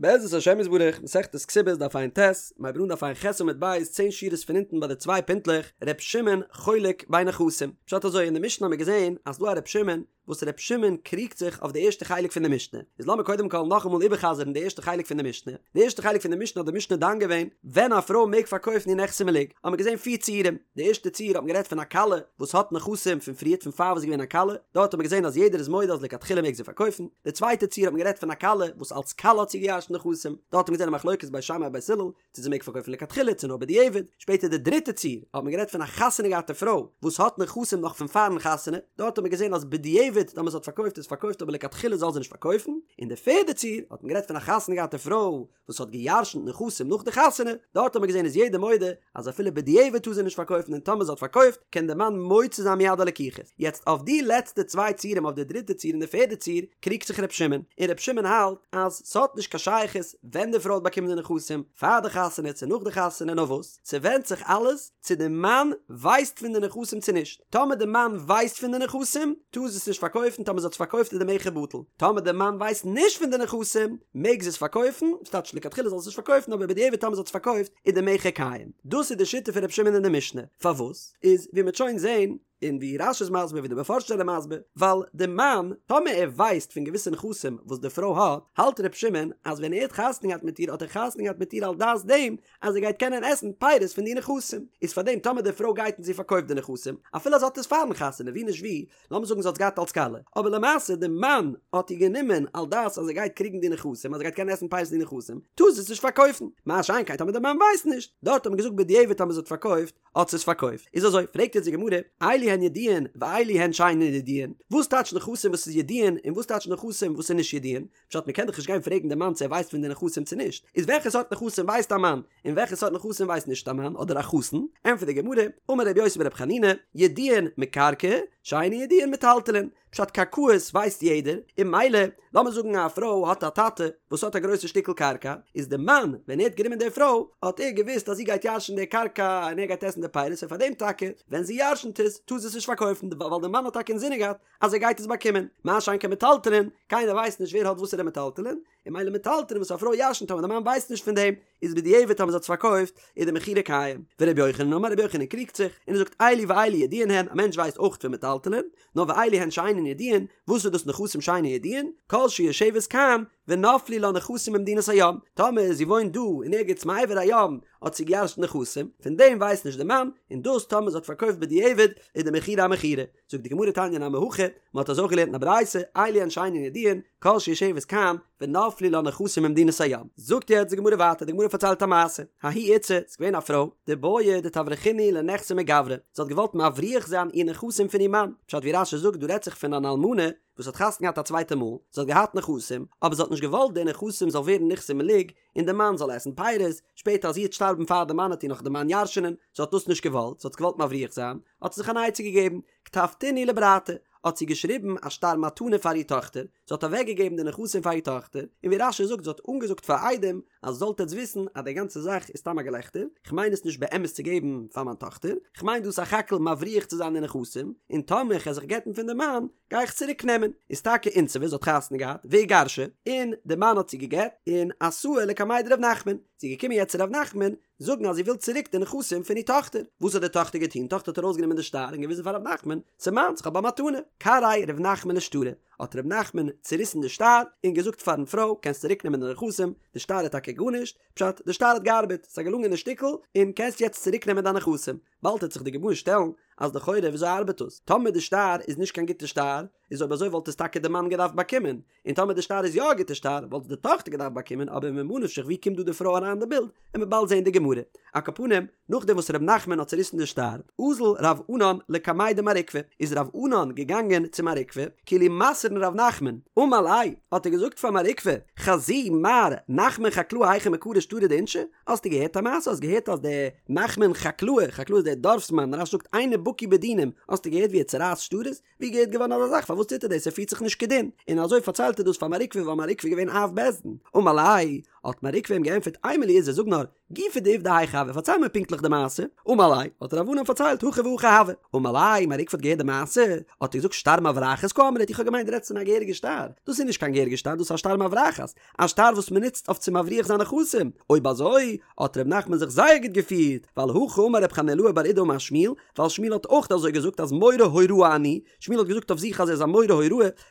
בעזרת השם יתברך, מסכת כתובות דף ע"ט, מ'הייבט אן דף ע"ח עמוד ב', צען שורות פון אונטן ביי די צוויי פינטלעך, ר' שמעון חולק בין נכסים. פשט אזוי, אין די משנה האבן מיר געזען אז ס'דא א ר' שמעון, וואס ר' שמעון קריגט זיך אויף די ערשטע חלק פון די משנה. איז לאמיר קודם כל נאכאמאל איבערחזר'ן די ערשטע חלק פון די משנה. די ערשטע חלק פון די משנה האט די משנה דן געווען ווען א פרוי מעג פארקויפן איר נכסי מלוג. האבן מיר געזען פיר ציורים. די ערשטע ציור האט מען גערעדט פון א כלה וואס האט נכסים פון פריערט פון פאר וואס איז געווען א כלה, דארט האט מען געזען אז יעדער איז מודה אז לכתחילה מעג זי פארקויפן, די צווייטע ציור האט מען גערעדט פון א כלה וואס אלס כלה האט זי געירש'נט נכסים, דארט האט מען געזען א מחלוקת בית שמאי בית הלל צו זי מעג פארקויפן לכתחילה צו נאר בדיעבד, שפעטער די דריטע ציור האט מען גערעדט פון א חתונה געהאטע פרוי וואס האט נכסים נאך פון פארן חתונה, דארט האט מען געזען אז בדיעבד טאמער זי האט פארקויפט איז פארקויפט אבער לכתחילה זאל זי נישט פארקויפן, און די פערדע ציור האט מען גערעדט פון א חתונה געהאטע פרוי וואס האט געירשנט נכסים נאך די חתונה, דארט האט מען געזען איז יעדער מודה אז אפילו בדיעבד טאר זי נישט פארקויפן און טאמער זי האט פארקויפט קען די מאן מוציא זיין מיד הלקוחות. יעצט אויף די לעצטע צוויי ציורים אויף די דריטע ציור און די פערדע ציור קריגט זיך ר' שמעון, און ר' שמעון האלט אז ס'האט נישט קיין שייכות ווען די פרוי האט באקומען די נכסים, פאר די חתונה צו נאך די חתונה נאר וואס ס'ווענדט זיך אלעס צו די מאן ווייסט פון די נכסים צו נישט. טאמער די מאן ווייסט פון די נכסים, טאר זי עס נישט פארקויפן, טאמער זי האט עס פארקויפט איז די מכר בטל. טאמער די מאן ווייסט נישט פון די נכסים, מעג זי עס פארקויפן, ס'טייטש לכתחילה זאל זי עס נישט פארקויפן, אבער בדיעבד טאמער זי האט עס פארקויפט איז די מכר קיים. דאס איז די שיטה פון רבי שמעון אין די משנה. פארוואס? איז ווי מ'וועט שוין זען, און ווי רש"י איז מסביר ווי די מפרשים זענען מסביר, ווייל די מאן, טאמער ער ווייסט פון געוויסע נכסים וואס די פרוי האט, האלט רבי שמעון אז ווען ער האט חתונה געהאט מיט איר האט ער חתונה געהאט מיט איר על דעת דעם אז ער גייט קענען עסן פירות פון די נכסים, איז פאר דעם טאמער די פרוי גייט און זי פארקויפט די נכסים, אפילו אז זי האט עס פארן חתונה ווי נישט ווי, לאמיר זאגן זי האט עס געהאט אלס כלה, אבער למעשה די מאן האט איר גענומען על דעת אז ער גייט קריגן די נכסים, אז ער גייט קענען עסן פירות פון די נכסים, טאר זי עס נישט פארקויפן, מה שאין כן טאמער די מאן ווייסט נישט, דארט האט מען געזאגט בדיעבד טאמער זי האט פארקויפט, האט זי עס פארקויפט, איז אזוי, פרעגט יעצט די גמרא, אלו הן ידועין ואלו הן שאינן ידועין, וואס טייטש נכסים וואס איז ידועין און וואס טייטש נכסים וואס איז נישט ידועין? פשט מ'קען דאך נישט גיין פרעגן די מאן צו ער ווייסט פון די נכסים צו נישט, איז וועלכע סארט נכסים ווייסט א מאן, און וועלכע סארט נכסים ווייסט נישט א מאן אדער א חתן, ענטפערט די גמרא, אמר רבי יוסי ברבי חנינא, ידועין מקרקעי, שאינן ידועין מטלטלין, פשט קרקעות ווייסט יעדער, און ממילא, לאמיר זאגן א פרוי האט א טאטע וואס האט א גרויסע שטיקל קרקע, איז די מאן ווען ער האט גענומען די פרוי האט ער געוואוסט אז זי גייט ירש'ן די קרקע און ער גייט עסן די פירות און פארדעם טאקע ווען זי ירש'נט עס טאר זי עס נישט פארקויפן ווייל די מאן האט טאקע אינזינען געהאט אז ער גייט עס באקומען, מה שאין כן מטלטלין, קיינער ווייסט נישט ווער האט וואסערע מטלטלין, און ממילא מטלטלין וואס א פרוי ירש'נט אבער די מאן ווייסט נישט פון דעם, איז בדיעבד טאמער זי האט עס פארקויפט, איז די מכירה קיים. ורבי יוחנן אמר רבי יוחנן קריגט זיך, און ער זאגט אלו ואלו ידועין הן, א מענטש ווייסט אויך פון מטלטלין, נאר ואלו הן שאינן ידועין, וואס איז דאס נכסים שאינן ידועין? כל שיושבת כאן, ונפלו לה נכסים במדינת הים, טאמער זי וואוינט דא אין ערגעץ מעבר הים האט זי געירש'נט נכסים, פון דעם ווייסט נישט די מאן, און דאס טאמער זי האט פארקויפט בדיעבד, איז די מכירה א מכירה. זאגט די גמרא תניא נמי הכי, מען האט אזוי אויך געלערנט אין א ברייתא, אלו הן שאינן ידועין, כל שיושבת כאן, ונפלו לה נכסים במדינת הים. זאגט יעצט די גמרא ווייטער, די גמרא פארציילט א מעשה, ההיא איתתא, ס'איז געווען א פרוי, דבעיא דתברחינהו לנכסי מגברא, זי האט געוואלט מבריח זיין איר נכסים פון איר מאן, פשט ווי רש"י זאגט דא רעדט זיך פון אן אלמנה וואס האט חתונה געהאט א צווייטע מאל, זי האט געהאט נכסים, אבער זי האט נישט געוואלט די נכסים זאל ווערן נכסי מלוג, און די מאן זאל עסן פירות, שפעטער אז זי וועט שטארבן פאר די מאן וועט איר נאך די מאן ירש'נען, זי האט דאס נישט געוואלט, זי האט עס געוואלט מבריח זיין, האט זי זיך אן עצה געגעבן, כתבתינהו לברתה, האט זי געשריבן א שטר מתנה פאר איר טאכטער, זי האט אוועק געגעבן די נכסים פאר איר טאכטער, און ווי רש"י זאגט זי האט אנגעזאגט פאר עדים, אז זאלט עטס וויסן אז די גאנצע זאך איז סתם א געלעכטער, איך מיין עס נישט באמת צו געבן פאר מיין טאכטער, איך מיין דא סך הכל מבריח צו זיין די נכסים, און טאמער איך וועל זיך גט'ן פון די מאן, גיי איך צוריק נעמען, איז טאקע אינסבה זי האט חתונה געהאט, ואיגרשה, און די מאן האט זי געגט, און אתאי לקמיה דרב נחמן, זי איז געקומען יעצט צו רב נחמן, זאגן אז זי וויל צוריק די נכסים פון איר טאכטער, וואס האט די טאכטער געטון, טאכטער האט ארויסגענומען די שטר און געוויזן פאר רב נחמן, ס'איז מיינס, כ'האב א מתנה, קרעיה רב נחמן לשטרא, האט רב נחמן צוריסן די שטר, און געזאגט פארן פרוי, קענסט צוריק נעמען די נכסים, די שטר איז טאקע גארנישט, פשט, די שטר האט געארבעט, ס'איז א געלונגענע שטיקל, און קענסט יעצט צוריק נעמען דיין נכסים. באלד וועט זיך די גמרא שטעלן אז לכאורה וויאזוי ארבעט דאס? טאמער די שטר איז נישט קיין גוטע שטר, איז אויב אזוי וואלט עס טאקע די מאן געדארפט באקומען, און טאמער די שטר איז יא א גוטע שטר וואלט עס די טאכטער געדארפט באקומען, אבער ממה נפשך ווי קומט דא די פרוי אריין אין די בילד, עמיר באלד זעהן די גמרא. על כל פנים, נאכדעם וואס ר' נחמן האט צוריסן די שטר, אזל רב ענן לקמיה דמר עוקבא, איז רב ענן געגאנגען צו מר עוקבא, כאילו מסר'ן ר' נחמן, אמר ליה, האט ער געזאגט פאר מר עוקבא, חזי מר נחמן חקלאה היכי מקרי שטרי דאינשי, האסטו געהערט א מעשה? האסט געהערט אז דער נחמן חקלאה, חקלאה איז דער דארפסמאן, רש"י זאגט אינו בקי בדינים, האסטו געהערט ווי ער צורייסט שטרות? ווי געהערט געווארן אזא זאך? פארוואס טוט ער דאס? ער פירט זיך נישט כדין. און אזוי פארציילט ער דאס פאר מר עוקבא ווייל מר עוקבא איז געווען אב בית דין. אמר ליה, האט מר עוקבא אים געענטפערט אימא לי איזי זאג נאר, גופא דעובדא היכי הוה, פארצייל מיר פונקטליך די מעשה. אמר ליה, האט רב ענן פארציילט, הכי והכי הוה. אמר ליה, מר עוקבא האט געהערט די מעשה, האט ער געזאגט שטר מברחת קאמרת, איך האב געמיינט דו רעדסט פון א געהעריגע שטר, דאס איז נישט קיין געהעריגע שטר, דאס איז א שטר מברחת, א שטר וואס מען נוצט אויף צו מבריח זיין נכסים, אויב אזוי האט ר' נחמן זיך זייער גוט געפירט, ווייל הכי אמר ר' חנילאי בר אידי אמר שמואל, ווייל שמואל האט אויך אזוי געזאגט אז מורה הוראה אני, שמואל האט געזאגט אויף זיך אז ער איז א מורה הוראה,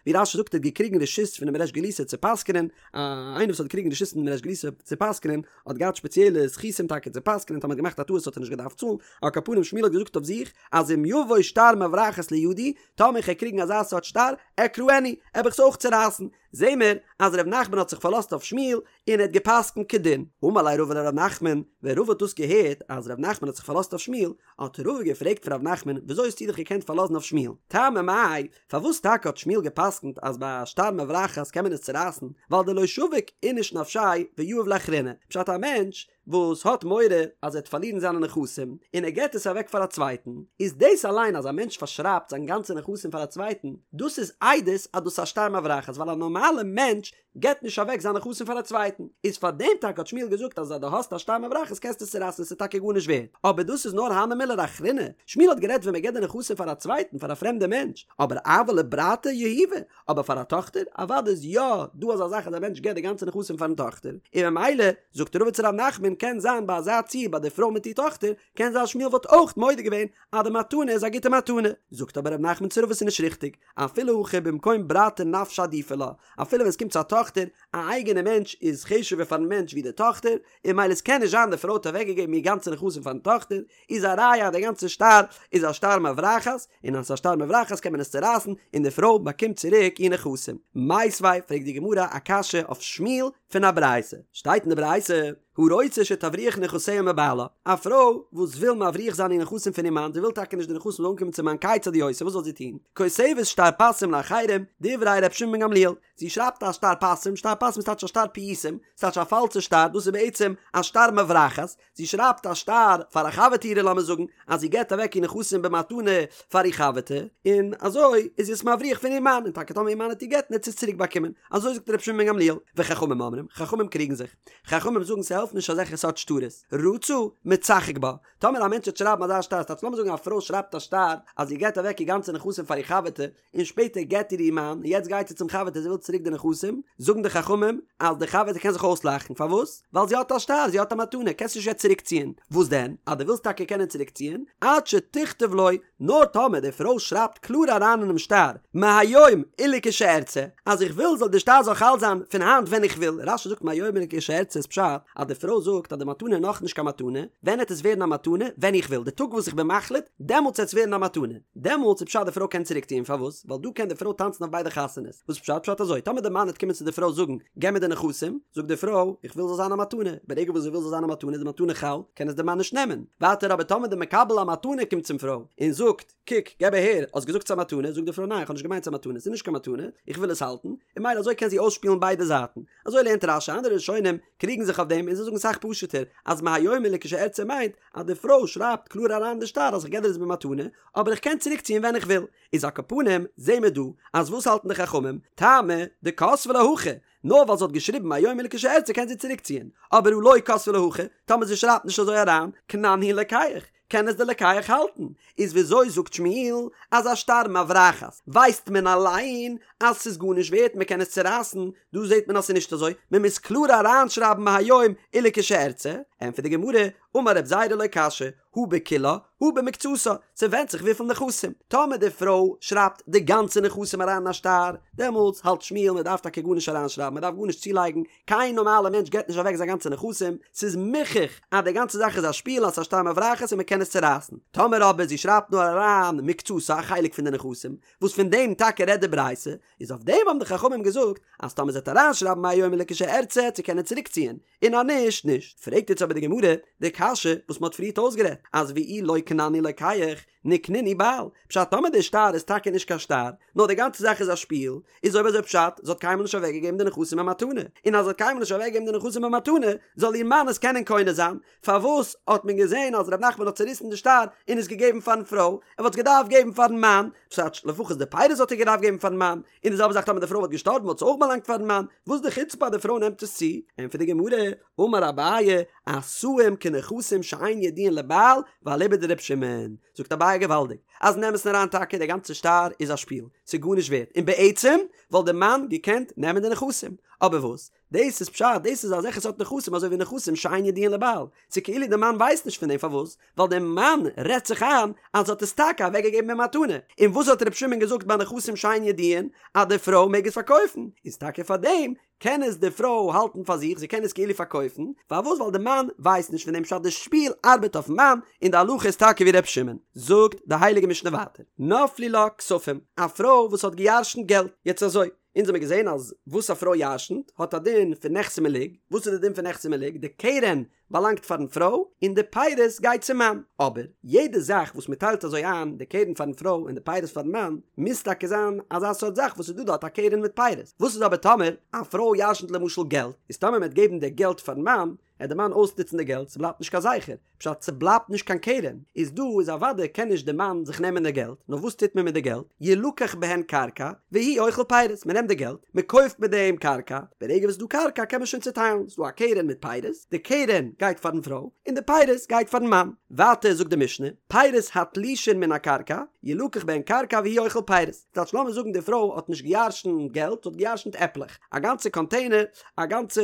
ווי רש"י זאגט ער האט געקריגן רשות פונעם ריש גלותא צו פסק'נען, איינער וואס האט געקריגן רשות פונעם ריש גלותא צו פסק'נען האט געהאט שפעציעלע זכותים טאקע צו פסק'נען, טאמער האט געמאכט א טעות האט ער נישט געדארפט צאלן, על כל פנים שמואל האט געזאגט אויף זיך אז אם יבוא שטר מברחת לידי, טאמער איך וועל קריגן אזא סארט שטר, אקרענו, וועל איך עס אויך צורייסן, זעהן מיר אז ר' נחמן האט זיך פארלאזט אויף שמואל און ער האט געפסקנט כדין. אמר ליה רבא לר' נחמן, ווען רבא האט דאס געהערט אז ר' נחמן האט זיך פארלאזט אויף שמואל, האט רבא געפרעגט פון ר' נחמן, וויאזוי האסטו דיך געקענט פארלאזן אויף שמואל? טעמא מאי, פארוואס טאקע האט שמואל געפסקנט אז ביי א שטר מברחת קען מען עס צורייסן, ווייל דלא שביק איניש נפשיה ויהיב לאחריני, פשט א מענטש וואס האט מורא אז ער וועט פארלירן זיינע נכסים און ער געט עס אוועק פאר א צווייטן, איז דאס אליין אז א מענטש פארשרייבט זיין גאנצע נכסים פאר א צווייטן, דאס איז עדות אז דאס איז א שטר מברחת ווייל א נארמאלע מענטש געט נישט אוועק זיין נכסים פאר א צווייטן, איז פאר דעם טאקע האט שמואל געזאגט אז אז דו האסט א שטר מברחת קענסטו עס צורייסן עס איז טאקע גארנישט ווערד, אבער דאס איז נאר הני מילי לאחריני, שמואל האט גערעדט ווען מען געט די נכסים פאר א צווייטן פאר א פרעמדע מענטש, אבער אבל לברתא יהיבא, אבער פאר א טאכטער, אוודאי איז יא דא אזא זאך אז א מענטש געט די גאנצע נכסים פארן טאכטער, און ממילא זאגט רבא צו ר' נחמן קען זיין ביי אזא ציור ביי די פרוי מיט איר טאכטער, קען זיין שמואל וואלט אויך מודה געווען אז די מתנה איז א גוטע מתנה, זאגט אבער ר' נחמן צו רבא ס'איז נישט ריכטיג, אפילו הכי במקום ברתא נפשה עדיפא לה, אפילו ווען עס קומט צו א טאכטער, א אייגענע מענטש איז חשוב'ער פארן מענטש ווי די טאכטער, און ממילא עס קען נישט זיין די פרוי האט אוועקגעגעבן איר גאנצע נכסים פארן טאכטער, איז א ראיה אז די גאנצע שטר איז א שטר מברחת, און אז ס'איז א שטר מברחת קען מען עס צורייסן און די פרוי באקומט צוריק איר נכסים. מיתיבי, פרעגט די גמרא א קשיא אויף שמואל פון א ברייתא, שטייט אין די ברייתא, הרוצה שתבריח נכסיה מבעלה, א פרוי וואס וויל מבריח זיין איר נכסים פון איר מאן, זי וויל טאקע נישט די נכסים זאלן אנקומען צום מאן, כיצד היא עושה, וואס זאל זי טון? כותבת שטר פסים לאחרים, דברי ר' שמעון בן גמליאל, זי שרייבט א שטר פסים, שטר פסים איז טייטש א שטר פיוסים, ס'טייטש א פאלשע שטר, דאס איז בעצם א שטר מברחת, זי שרייבט א שטר פאר א חבר'טע אירע לאמיר זאגן אז זי געבט אוועק איר נכסים במתנה פאר איר חבר'טע, און אזוי איז זי עס מבריח פון איר מאן, און טאקע טאמער איר מאן וועט איר גט'ן וועט זי עס צוריק באקומען, אזוי זאגט רבי שמעון בן גמליאל, וחכמים אומרים, חכמים קריגן זיך, חכמים זאגן ס'העלפט נישט אזעלכע סארט שטרות, רצה, מצחק בה, טאמער א מענטש וועט שרייבן אזא שטר, ס'טייטש לאמיר זאגן א פרוי שרייבט א שטר אז זי געבט אוועק איר גאנצע נכסים פאר איר חבר'טע, און שפעטער גט איר איר מאן, און יעצט גייט זי צום חבר'טע זי וויל צוריק די נכסים, זאגן די חכמים אז די חבר'טע קען זיך אויסלאכן, פארוואס? ווייל זי האט א שטר, זי האט א מתנה, קענסט נישט יעצט צוריק ציען, וואס דען? אז דו ווילסט טאקע קענען צוריק ציען, עד שתכתוב לו, נאר טאמער די פרוי שרייבט קלאר אריין אינעם שטר, מהיום ולכשארצה, אז איך וויל זאל די שטר זאל חל זיין פון היינט ווען איך וויל, רש"י זאגט מהיום ולכשארצה איז פשט אז די פרוי זאגט אז די מתנה איז נאכנישט קיין מתנה, ווען העט עס ווערן א מתנה? ווען איך וויל, די טאג וואס איך בין מחליט, דעמאלטס העט עס ווערן א מתנה. דעמאלטס איז פשט די פרוי קען צוריק ציען פארוואס? ווייל דא קען די פרוי טאנצן אויף ביידע חתונות, וואס פשט? פשט אזוי, טאמער די מאן העט קומען צו די פרוי זאגן געב מיר די נכסים, זאגט די פרוי איך וויל זאל זיין א מתנה, ברגע וואס זי וויל זאל זיין א מתנה איז די מתנה חל, קען עס די מאן נישט נעמען, ווייטער אבער טאמער די מקבל המתנה קומט צום פרוי און זאגט קוק געב אהער האסט געזאגט ס'איז א מתנה, זאגט די פרוי ניין איך האב נישט געמיינט ס'איז א מתנה, ס'איז נישט קיין מתנה, איך וויל עס האלטן, און ממילא אזוי קען זי אויסשפילן ביידע זייטן, אזוי לערנט רש"י, אנדערע ראשונים קריגן זיך אויף דעם און זיי זאגן אסאך פשוט'ער אז מהיום ולכשארצה מיינט אז די פרוי שרייבט קלאר אריין אין די שטר אז איך געב דיר עס במתנה, אבער איך קען צוריק ציען ווען איך וויל. איז על כל פנים, זעהן מיר דא, אז וואס האלטן די חכמים? טעמא דכתבה לה הכי, נאר ווייל זי האט געשריבן מהיום ולכשארצה קען זי צוריק ציען, אבער הא לא כתבה לה הכי, טאמער זי שרייבט נישט אזוי אריין, קנן הוא לוקח, קען עס די לוקח האלטן. איז וויאזוי זאגט שמואל אז א שטר מברחת ווייסט מען אליין אז ס'איז גארנישט ווערט מען קען עס צורייסן, דא זעהט מען אז ס'איז נישט אזוי, מען מוז קלאר אריינשרייבן מהיום ולכשארצה, ענטפערט די גמרא, אמר רב זירא לא קשיא, הא בכולה, הא במקצתה, ס'ווענדט זיך וויפיל נכסים, טאמער די פרוי שרייבט די גאנצע נכסים אריין אין א שטר, דעמאלטס האלט שמואל מען דארף טאקע גארנישט אריינשרייבן, מען דארף גארנישט צולייגן, קיין נארמאלע מענטש געבט נישט אוועק זיין גאנצע נכסים, ס'איז מוכח אז די גאנצע זאך איז א שפיל אז ס'איז א שטר מברחת און מען קען עס צורייסן, טאמער אבער זי שרייבט נאר אריין מקצתה א חלק פון די נכסים, וואס פון דעם טאקע רעדט די ברייתא, איז אויף דעם האבן די חכמים געזאגט אז טאמער זי וועט אריינשרייבן מהיום ולכשארצה צו קענען צוריקציען, און אז נישט, נישט. פרעגט יעצט אבער די גמרא די קשיא וואס מען האט פריערט אויסגערעדט, אז ואי לא קנן. כנעני לוקח, ניקנינהו בעל, פשט טאמער די שטר איז טאקע נישט קיין שטר, נאר די גאנצע זאך איז א שפיל, איז אויב אזוי פשט, זי האט קיינמאל נישט אוועקגעגעבן די נכסים במתנה, און אז זי האט קיינמאל נישט אוועקגעגעבן די נכסים במתנה, זאל איר מאן עס קענען קונה זיין, פארוואס האט מען געזען אז ר' נחמן האט צוריסן די שטר און עס געגעבן פארן פרוי, ער וואלט עס געדארפט געבן פארן מאן, פשט לפחות די פירות וואלט ער געדארפט געבן פארן מאן, און די זעלבע זאך טאמער די פרוי וואלט געשטארבן וואלט עס אויך באלאנגט פארן מאן, וואס די חוצפה אז די פרוי נעמט עס צו? ענטפערט די גמרא, אמר אביי, עשאים כנכסים שאין ידועין לבעל, ואליבא דר' שמעון, זאגט אביי געוואלדיג, אז אין אמת'ן אריין טאקע די גאנצע שטר איז א שפיל, ס'איז גארנישט ווערט, און בעצם וואלט די מאן געקענט נעמען די נכסים, אבער וואס? דאס איז פשט, דאס איז אזעלכע סארט נכסים אזוי ווי נכסים שאין ידועין לבעל, ס'איז כאילו די מאן ווייסט נישט פון דעם, פארוואס? ווייל די מאן רעדט זיך איין אז זי האט עס טאקע אוועק געגעבן במתנה, און וואס האט ר' שמעון געזאגט ביי נכסים שאין ידועין אז די פרוי מעג עס פארקויפן, איז טאקע פאר דעם קען עס די פרוי האלטן פאר זיך, זי קען עס כאילו פארקויפן, פארוואס? ווייל די מאן ווייסט נישט פון דעם פשט די שפיל ארבעט אויפן מאן, און די הלכה איז טאקע ווי ר' שמעון. זאגט די הייליגע משנה ווייטער, נפלו לה כספים, א פרוי וואס האט געירשנט געלט, יעצט אזוי, אונז האמיר געזען אז וואס א פרוי ירשנט האט א דין פון נכסי מלוג, וואס איז די דין פון נכסי מלוג? די קרן באלאנגט פארן פרוי און די פירות גייט צום מאן, אבער יעדע זאך וואס מען טיילט אזוי איין, די קרן פארן פרוי און די פירות פארן מאן, מוז טאקע זיין אזא סארט זאך וואס איז דא דארט א קרן מיט פירות, וואס איז אבער טאמער א פרוי ירשנט למשל געלט, איז טאמער מען וועט געבן די געלט פארן מאן, עט די מאן אויסנוצן די געלט, ס'בלייבט נישט קיין זכר, פשט ס'בלייבט נישט קיין קרן, איז דא איז אוודאי קען נישט די מאן זיך נעמען די געלט, נאר וואס טוט מען מיט די געלט, ילקח בהן קרקע, והוא אוכל פירות, מען נעמט די געלט, מען קויפט מיט דעם קרקע, ברגע וואס ס'איז דא קרקע קען מען שוין צוטיילן, ס'איז דא א קרן מיט פירות, די קרן גייט פארן פרוי, און די פירות גייט פארן מאן. ווייטער זאגט די משנה, פירות התלושין מן הקרקע, ילקח בהן קרקע והוא אוכל פירות, ס'טייטש לאמיר זאגן די פרוי האט נישט געירשנט געלט, זי האט געירשנט עפלעך, א גאנצע קאנטעינער, א גאנצע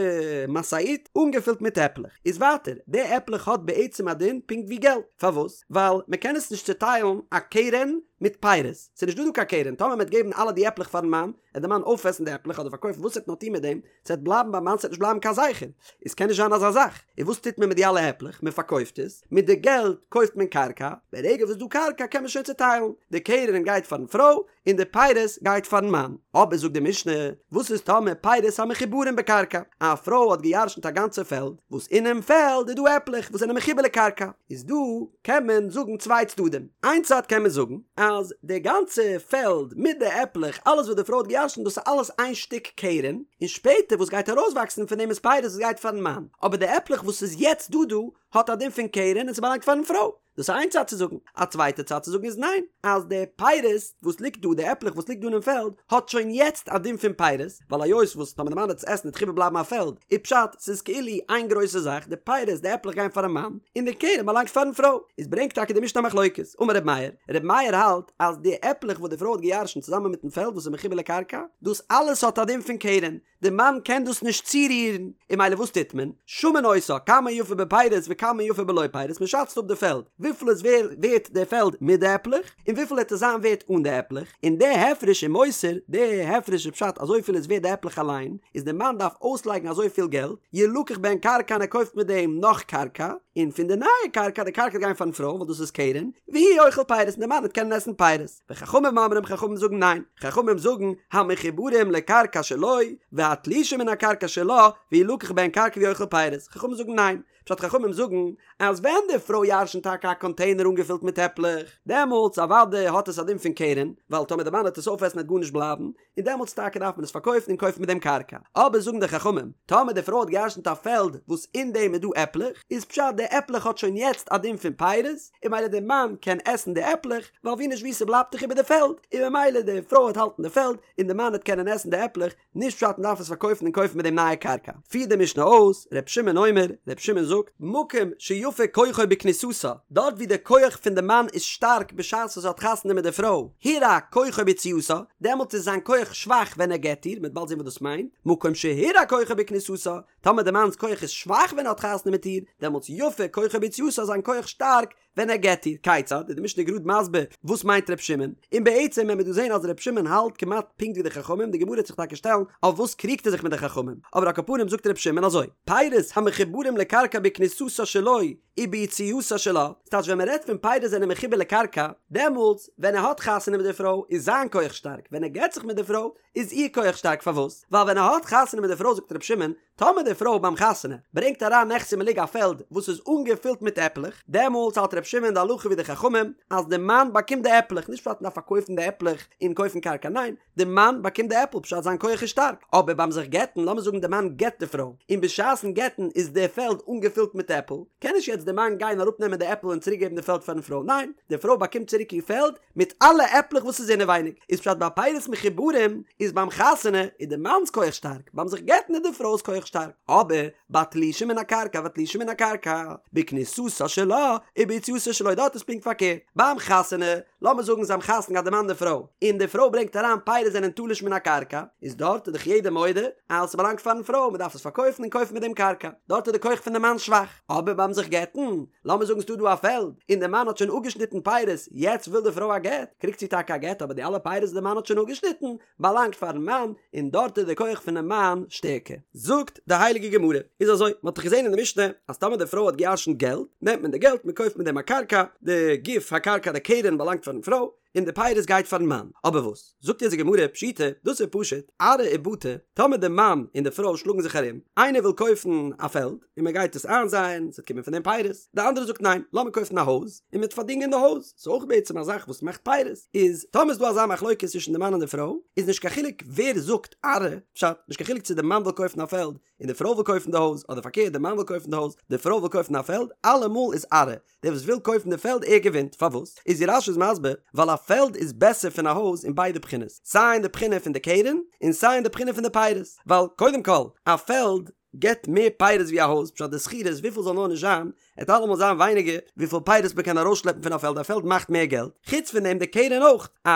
משאית אנגעפילט מיט עפלעך, איז ווייטער, די עפלעך האט בעצם א דין פונקט ווי געלט, פארוואס? ווייל מען קען עס נישט צוטיילן א קרן מיט פירות, ס'איז נישט דא דא קיין קרן, טאמער מען וועט געבן אלע די עפלעך פארן מאן, וועט די מאן אויפעסן די עפלעך אדער פארקויפן וואס ער וועט נאר טון מיט דעם, ס'וועט בלייבן ביים מאן, ס'וועט נישט בלייבן קיין זכר, איז קען נישט זיין אזא זאך, און וואס טוט מען מיט די אלע עפלעך? מען פארקויפט עס, מיט די געלט קויפט מען קרקע, ברגע וואס ס'איז דא קרקע קען מען שוין צוטיילן, די קרן גייט פארן פרוי, און די פירות גייט פארן מאן. אבער זאגט די משנה, וואס איז טאמער פירות המחוברים בקרקע? א פרוי האט גע'ירש'נט א גאנצע פעלד, וואס אינעם פעלד איז דא עפלעך וואס זענען מחובר לקרקע, איז דא קען מען זאגן צוויי צדדים, איין צד קען מען זאגן אז די גאנצע פעלד מיט די עפלעך, אלעס וואס די פרוי האט גע'ירש'נט דאס איז אלעס איין שטיק קרן, און שפעטער וואס גייט ארויסוואקסן פון דעם איז פירות וואס גייט פארן מאן, אבער די עפלעך וואס איז יעצט דא דא האט א דין פון קרן און ס'באלאנגט פארן פרוי. דאס איז איין צד צו זאגן, א צווייטע צד צו זאגן איז ניין, אז די פירות וואס ליגט דא, די עפלעך וואס ליגט דא אינעם פעלד, האט שוין יעצט א דין פון פירות, ווייל היות וואס טאמער די מאן וועט עס עסן וועט דאך איבערבלייבן א פעלד, איז פשט ס'איז כאילו איין גרויסע זאך, די פירות, די עפלעך גייען פארן מאן, און די קרן באלאנגט פארן פרוי. איז ברענגט טאקע די משנה א מחלוקת, אמר ר' מאיר, ר' מאיר האלט אז די עפלעך וואס די פרוי האט געירשנט צוזאמען מיטן פעלד וואס איז מחובר לקרקע, דאס אלעס האט א דין פון קרן, די מאן קען דאס נישט צורירן, און ממילא וואס טוט מען? שמין אותה, כמה יפה בפירות וכמה יפה בלא פירות, מען שאצט אפ די פעלד, וויפיל איז ווערט די פעלד מיט די עפלעך, און וויפיל וועט עס זיין ווערט אן די עפלעך, און די הפרש ומוסר, די הפרש איז פשט אזויפיל איז ווערט די עפלעך אליין, איז די מאן דארף אויסלייגן אזויפיל געלט, ילקח בהן קרקע און ער קויפט מיט דעם נאך קרקע, און פון די נייע קרקע, די קרקע וועט גיין פארן פרוי ווייל דאס איז קרן, והוא אוכל פירות און די מאן וועט קענען עסן פירות. וחכמים אומרים חכמים זאגן ניין, חכמים זאגן המחוברים לקרקע שלו והתלושים מן הקרקע שלה וילקח בהן קרקע והוא אוכל פירות, חכמים זאגן ניין, פשט חכמים זאגן אז ווען די פרוי ירשנט טאקע א קאנטעינער אנגעפילט מיט עפלעך, דעמאלטס אוודאי האט עס א דין פון קרן, ווייל טאמער די מאן וועט עס אויפעסן וועט גארנישט בלייבן, און דעמאלטס טאקע דארף מען עס פארקויפן און קויפן מיט דעם קרקע. אבער זאגן די חכמים, טאמער די פרוי האט געירשנט א פעלד וואס אין דעם איז דא עפלעך, איז פשט די עפלעך האט שוין יעצט א דין פון פירות, און ממילא די מאן קען עסן די עפלעך, ווייל ווי נישט ווי ס'בלייבט דאך איבער די פעלד, און ממילא די פרוי וועט האלטן די פעלד, און די מאן וועט קענען עסן די עפלעך, נישט פשט מ'דארף עס פארקויפן און קויפן מיט דעם נייע קרקע. פירט די משנה אויס, ר' שמעון אומר, ר' שמעון זאגט, מקום שיפה כוחו בכניסתה, דארט ווי די כח פון די מאן איז שטארק בשעת וואס ער האט חתונה מיט די פרוי, הורע כוחו ביציאתה, דעמאלט איז זיין כח שוואך ווען ער גט איר, מ'וועט באלד זען וואס דאס מיינט, מקום שהורע כוחו בכניסתה, טאמער די מאנ'ס כח איז שוואך ווען ער האט חתונה מיט איר, דעמאלטס יפה כוחו ביציאתה איז זיין כח שטארק ווען ער גט איר, כיצד, איז די משנה גראד מסביר וואס מיינט ר' שמעון, און בעצם וועט מען דא זען אז ר' שמעון האלט כמעט פונקט ווי די חכמים, די גמרא וועט זיך טאקע שטעלן אויף וואס קריגט ער זיך מיט די חכמים, אבער על כל פנים זאגט ר' שמעון אזוי, פירות המחוברים לקרקע בכניסתה שלו וביציאתה שלה, ס'טייטש ווען מ'רעדט פון פירות זענען מחובר לקרקע, דעמאלטס ווען ער האט חתונה מיט די פרוי איז זיין כח שטארק, ווען ער גט זיך מיט די פרוי איז איר כח שטארק, פארוואס? ווייל ווען ער האט חתונה מיט די פרוי זאגט ר' שמעון, טאמער די פרוי ביים חתונה ברענגט אריין נכסי מלוג א פעלד וואס איז אנגעפילט מיט עפלעך, דעמאלטס האלט ר' שמעון די הלכה ווי די חכמים אז די מאן באקומט די עפלעך, נישט פשט מ'דארף פארקויפן די עפלעך און קויפן קרקע, ניין, די מאן באקומט די עפל פשט זיין כח איז שטארק, אבער ביים זיך גט'ן, לאמיר זאגן די מאן גט די פרוי, און בשעת'ן גט'ן איז די פעלד אנגעפילט מיט עפל, קען נישט יעצט די מאן גיין אראפנעמען די עפל און צוריק געבן די פעלד פארן פרוי, ניין, די פרוי באקומט צוריק איר פעלד מיט אלע עפלעך וואס איז אינעווייניג, איז פשט ביי פירות מחוברים איז ביים חתונה איז די מאנ'ס כח שטארק, ביים זיך גט'ן איז די פרוי'ס כח שטארק, אבער בתלושים מן הקרקע בתלושים מן הקרקע, בכניסתה שלה וביציאתה שלו דארט איז פונקט פארקערט, ביים חתונה, לאמיר זאגן זיי האבן חתונה געהאט די מאן די פרוי, און די פרוי ברענגט אריין פירות זענען תלוש מן הקרקע, איז דארט איז דאך יעדער מודה אז ס'באלאנגט פארן פרוי מ'דארף עס פארקויפן און קויפן מיט דעם קרקע, דארט איז די כח פון די מאן שוואך, אבער ביים זיך גט'ן, לאמיר זאגן ס'דא דא א פעלד, און די מאן האט שוין אפגעשניטן פירות, יעצט וויל די פרוי א גט, קריגט זי טאקע א גט אבער די אלע פירות וואס די מאן האט שוין אפגעשניטן, באלאנגט פארן מאן, און דארט איז די כח פונעם מאן שטערקער. זאגט די הייליגע גמרא, איז אזוי, מען האט דאך געזען אין די משנה, אז טאמער די פרוי האט געירשנט געלט, נעמט מען די געלט, מען קויפט מיט דעם א קרקע, די גוף הקרקע די קרן באלאנגט פארן פרוי, און די פירות גייט פארן מאן. אבער וואס? זאגט אונז די גמרא, פשיטא, דאס איז פשוט, ארעא ובתי, טאמער די מאן און די פרוי שלאגן זיך ארום, איינער וויל קויפן א פעלד, און מען גייט עס איינזייען, ס'וועט קומען פון דעם פירות, די אנדערע זאגט ניין, לאמיר קויפן א הויז, און מ'וועט פארדינגען די הויז, ס'איז אויך בעצם א זאך וואס מאכט פירות, איז טאמער איז דא אזא מחלוקת צווישן די מאן און די פרוי, איז נישט קיין חילוק ווער זאגט ארעא, פשט, נישט קיין חילוק צו די מאן וויל קויפן א פעלד, און די פרוי וויל קויפן די הויז, אדער פארקערט די מאן וויל קויפן די הויז, די פרוי וויל קויפן א פעלד, אלעמאל איז ארעא, דער וואס וויל קויפן די פעלד ער געווינט, פארוואס? איז ווי רש"י איז מסביר, ווייל א פעלד איז בעסער פון א הויז אין ביידע בחינות, סיי אין די בחינה פון די קרן, און סיי אין די בחינה פון די פירות, ווייל קודם כל, א פעלד געבט מער פירות ווי א הויז, פשט די שכירות וויפיל זאל נאר נישט זיין, עט אלעמאל זיין ווייניגער וויפיל פירות מען קען ארויסשלעפן פון א פעלד, א פעלד מאכט מער געלט, חוץ פון דעם די קרן אויך, א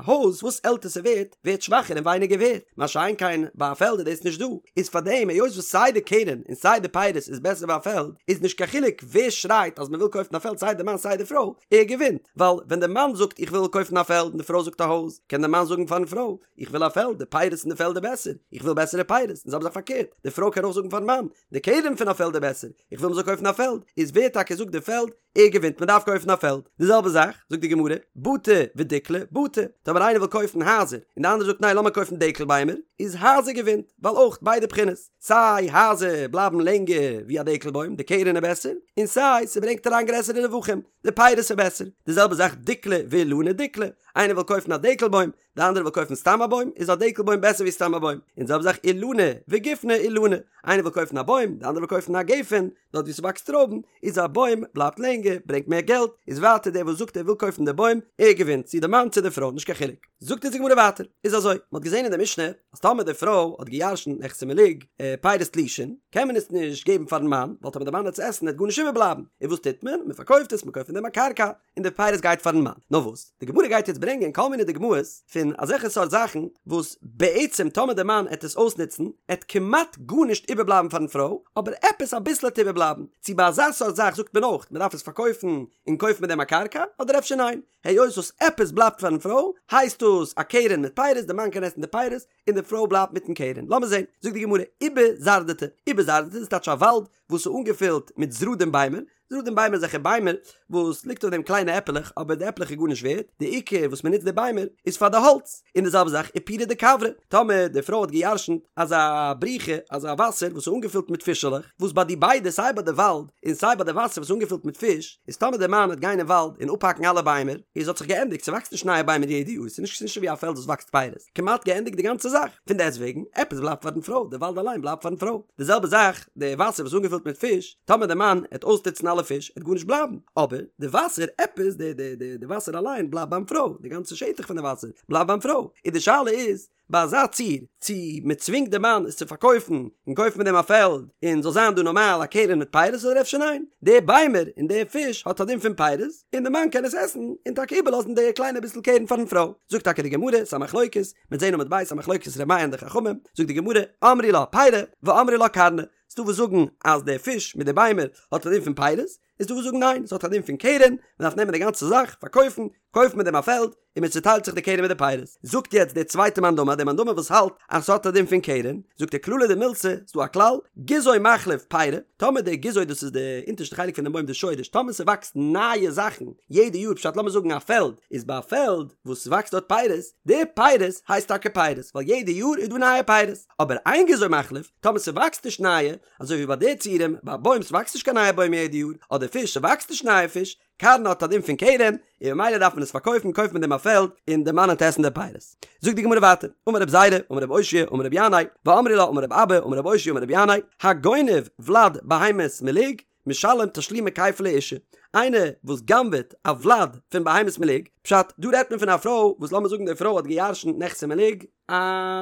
הויז וואס עלטער ס'ווערט, ווערט שוואכער און ווייניגער ווערט, מה שאין כן ביי א פעלד איז דאס נישט דא, איז פארדעם היות וואס סיי די קרן און סיי די פירות איז בעסער ביי א פעלד, איז נישט קיין חילוק ווער שרייט אז מען וויל קויפן א פעלד סיי די מאן סיי די פרוי, ער געווינט, ווייל ווען די מאן זאגט איך וויל קויפן א פעלד און די פרוי זאגט א הויז, קען די מאן זאגן פארן פרוי, איך וויל א פעלד, די פירות אין די פעלד איז בעסער, איך וויל בעסערע פירות, און זעלבע זאך פארקערט, די פרוי קען אויך זאגן פארן מאן, די קרן פון א פעלד איז בעסער, איך וויל מען זאל קויפן א פעלד, איז ווער טאקע זאגט די פעלד, ער געווינט, מען דארף קויפן א פעלד. די זעלבע זאך, זאגט די גמרא, בתי ודיקלי, בתי, טאמער איינער וויל קויפן הייזער, און די אנדערע זאגט ניין לאמיר קויפן דקל ביימער, איז הייזער געווינט, ווייל אויך ביידע בחינות, סיי הייזער בלייבן לענגער ווי א דקל בוים, די קרן איז בעסער, און סיי ס'ברענגט אריין גרעסערע רווחים, די פירות איז בעסער. די זעלבע זאך דיקלי ואילני, דיקלי, איינער וויל קויפן א דקל בוים, די אנדערע וויל קויפן סתם א בוים, איז א דקל בוים בעסער ווי סתם א בוים, און די זעלבע זאך אילני וגופני אילני, איינער וויל קויפן א בוים, די אנדערע וויל קויפן א גפן, דארט ווי ס'וואקסט טרויבן, איז א בוים בלייבט לענגער, ברענגט מער געלט, איז ווייטער דער וואס זאגט ער וויל קויפן די בוים, ער געווינט, צו די מאן צו די פרוי, נישט קיין חילוק. זאגט אונז די גמרא ווייטער, איז אזוי, מ'האט געזען אין די משנה, אז טאמער די פרוי האט גע'ירש'נט נכסי מלוג, פירות תלושין, קען מען עס נישט געבן פארן מאן, ווייל טאמער די מאן וועט עס עסן וועט גארנישט איבערבלייבן, און וואס טוט מען? מ'פארקויפט עס, מ'קויפט פון דעם א קרקע, און די פירות גייט פארן מאן. נאר וואס, די גמרא גייט יעצט ברענגען כל מיני דוגמאות פון אזעלכע סארט זאכן וואס בעצם טאמער די מאן עט עס אויסנוצן עט כמעט גארנישט איבערבלייבן פארן פרוי, אבער עפעס אביסל עט איבערבלייבן. צו ביי אזא סארט זאך זאגט מען אויך מען דארף עס פארקויפן און קויפן מיט דעם א קרקע, אדער אפשר ניין, היות וואס עפעס בלייבט פארן פרוי הייסט דאס א קרן מיט פירות, די מאן קען עסן די פירות און די פרוי בלייבט מיטן קרן. לאמיר זען, זאגט די גמרא, אובא זרדתא, אובא זרדתא איז טייטש א וואלד וואס איז אנגעפילט מיט זרדים ביימער, זרדים ביימער אזעלכע ביימער וואס ליגט אויף דעם קליינע עפעלעך אבער די עפלעך איז גארנישט ווערט, די עיקר וואס מען נוצט די ביימער איז פאר די האלץ, און די זעלבע זאך ופורא דכוורי, טאמער די פרוי האט גע'ירש'נט אזא בריכה אזא וואסער וואס איז אנגעפילט מיט פישעלעך, וואס ביי די ביידע סיי ביי די וואלד און סיי ביי די וואסער וואס איז אנגעפילט מיט פיש, איז טאמער די מאן וועט גיין אין וואלד און אפהאקן אלע ביימער, איז האט זיך געענדיגט, ס'וואקסט נישט נייע ביימער יעדע יאר, ס'איז נישט ווי א פעלד וואס וואקסט פירות. כמעט געענדיגט די גאנצע זאך, פון דעסטוועגן, עפעס בלייבט פארן פרוי, די וואלד אליין בלייבט פארן פרוי. די זעלבע זאך, די וואסער וואס איז אנגעפילט מיט פיש, טאמער די מאן העט אויסנוצן אלע פיש, העט גארנישט בלייבן, אבער די וואסער, עפעס, די די די די וואסער אליין בלייבט ביים פרוי, די גאנצע שטח פון די וואסער בלייבט ביים פרוי, און די שאלה איז, ביי אזא ציור, צו מען צווינגט די מאן עס צו פארקויפן און קויפן מיט דעם א פעלד, און זאל זיין דא נארמאל א קרן מיט פירות אדער אפשר ניין, די ביימער און די פיש האט א דין פון פירות, און די מאן קען עס עסן און טאקע איבערלאזן די קליינע ביסל קרן פארן פרוי. זאגט טאקע די גמרא, ס'א מחלוקת, מ'עט זעהן עמוד ב', א מחלוקת ר' מאיר און די חכמים, זאגט די גמרא, אמרי לה פירי, ואמרי לה קרנא. ס'דא וואס זאגן אז די פיש מיט די ביימער האט א דין פון פירות, איז דא וואס זאגן ניין, ס'האט א דין פון קרן, מ'דארף נעמען די גאנצע זאך, פארקויפן, קויפן מיט דעם א פעלד, און מען צוטיילט זיך די קרן מיט די פירות. זאגט יעצט דער צווייטער מאן דאמר, דער מאן דאמר וואס האלט אז ס'האט א דין פון קרן, זאגט ער כללא דמילתא, ס'דא א כלל, גזעו מחליף פירי, טאמער די גזעו דאס איז די אונטערשטע חלק פונעם בוים די שורש, טאמער ס'וואקסט נייע זאכן יעדע יאר, פשט לאמיר זאגן א פעלד, איז ביי א פעלד וואס ס'וואקסט דארט פירות, די פירות הייסט טאקע פירות, ווייל יעדע יאר איז דא נייע פירות, אבער אין גזעו מחליף, טאמער ס'וואקסט נישט נייע, אזוי ווי ביי די ציורים, ביי א בוים ס'וואקסט נישט קיין נייע בוים יעדע יאר, אדער פיש ס'וואקסט נישט נייע פיש, קרנא האט א דין פון קרן, און ממילא דארף מען עס פארקויפן, קויפט מען דעם א פעלד, און די מאן וועט עסן די פירות. זאגט די גמרא ווייטער, אמר רב זירא, אמר רב אושעיא, אמר רבי ינאי, ואמרי לה אמר רב אבא, אמר רב אושעיא אמר רבי ינאי, הגונב ולד בהמת מלוג, משלם תשלומי כפל לאשה, איינער וואס גנב'עט א ולד פון בהמת מלוג, פשט, דא רעדט מען פון א פרוי וואס לאמיר זאגן די פרוי האט גע'ירש'נט נכסי מלוג, א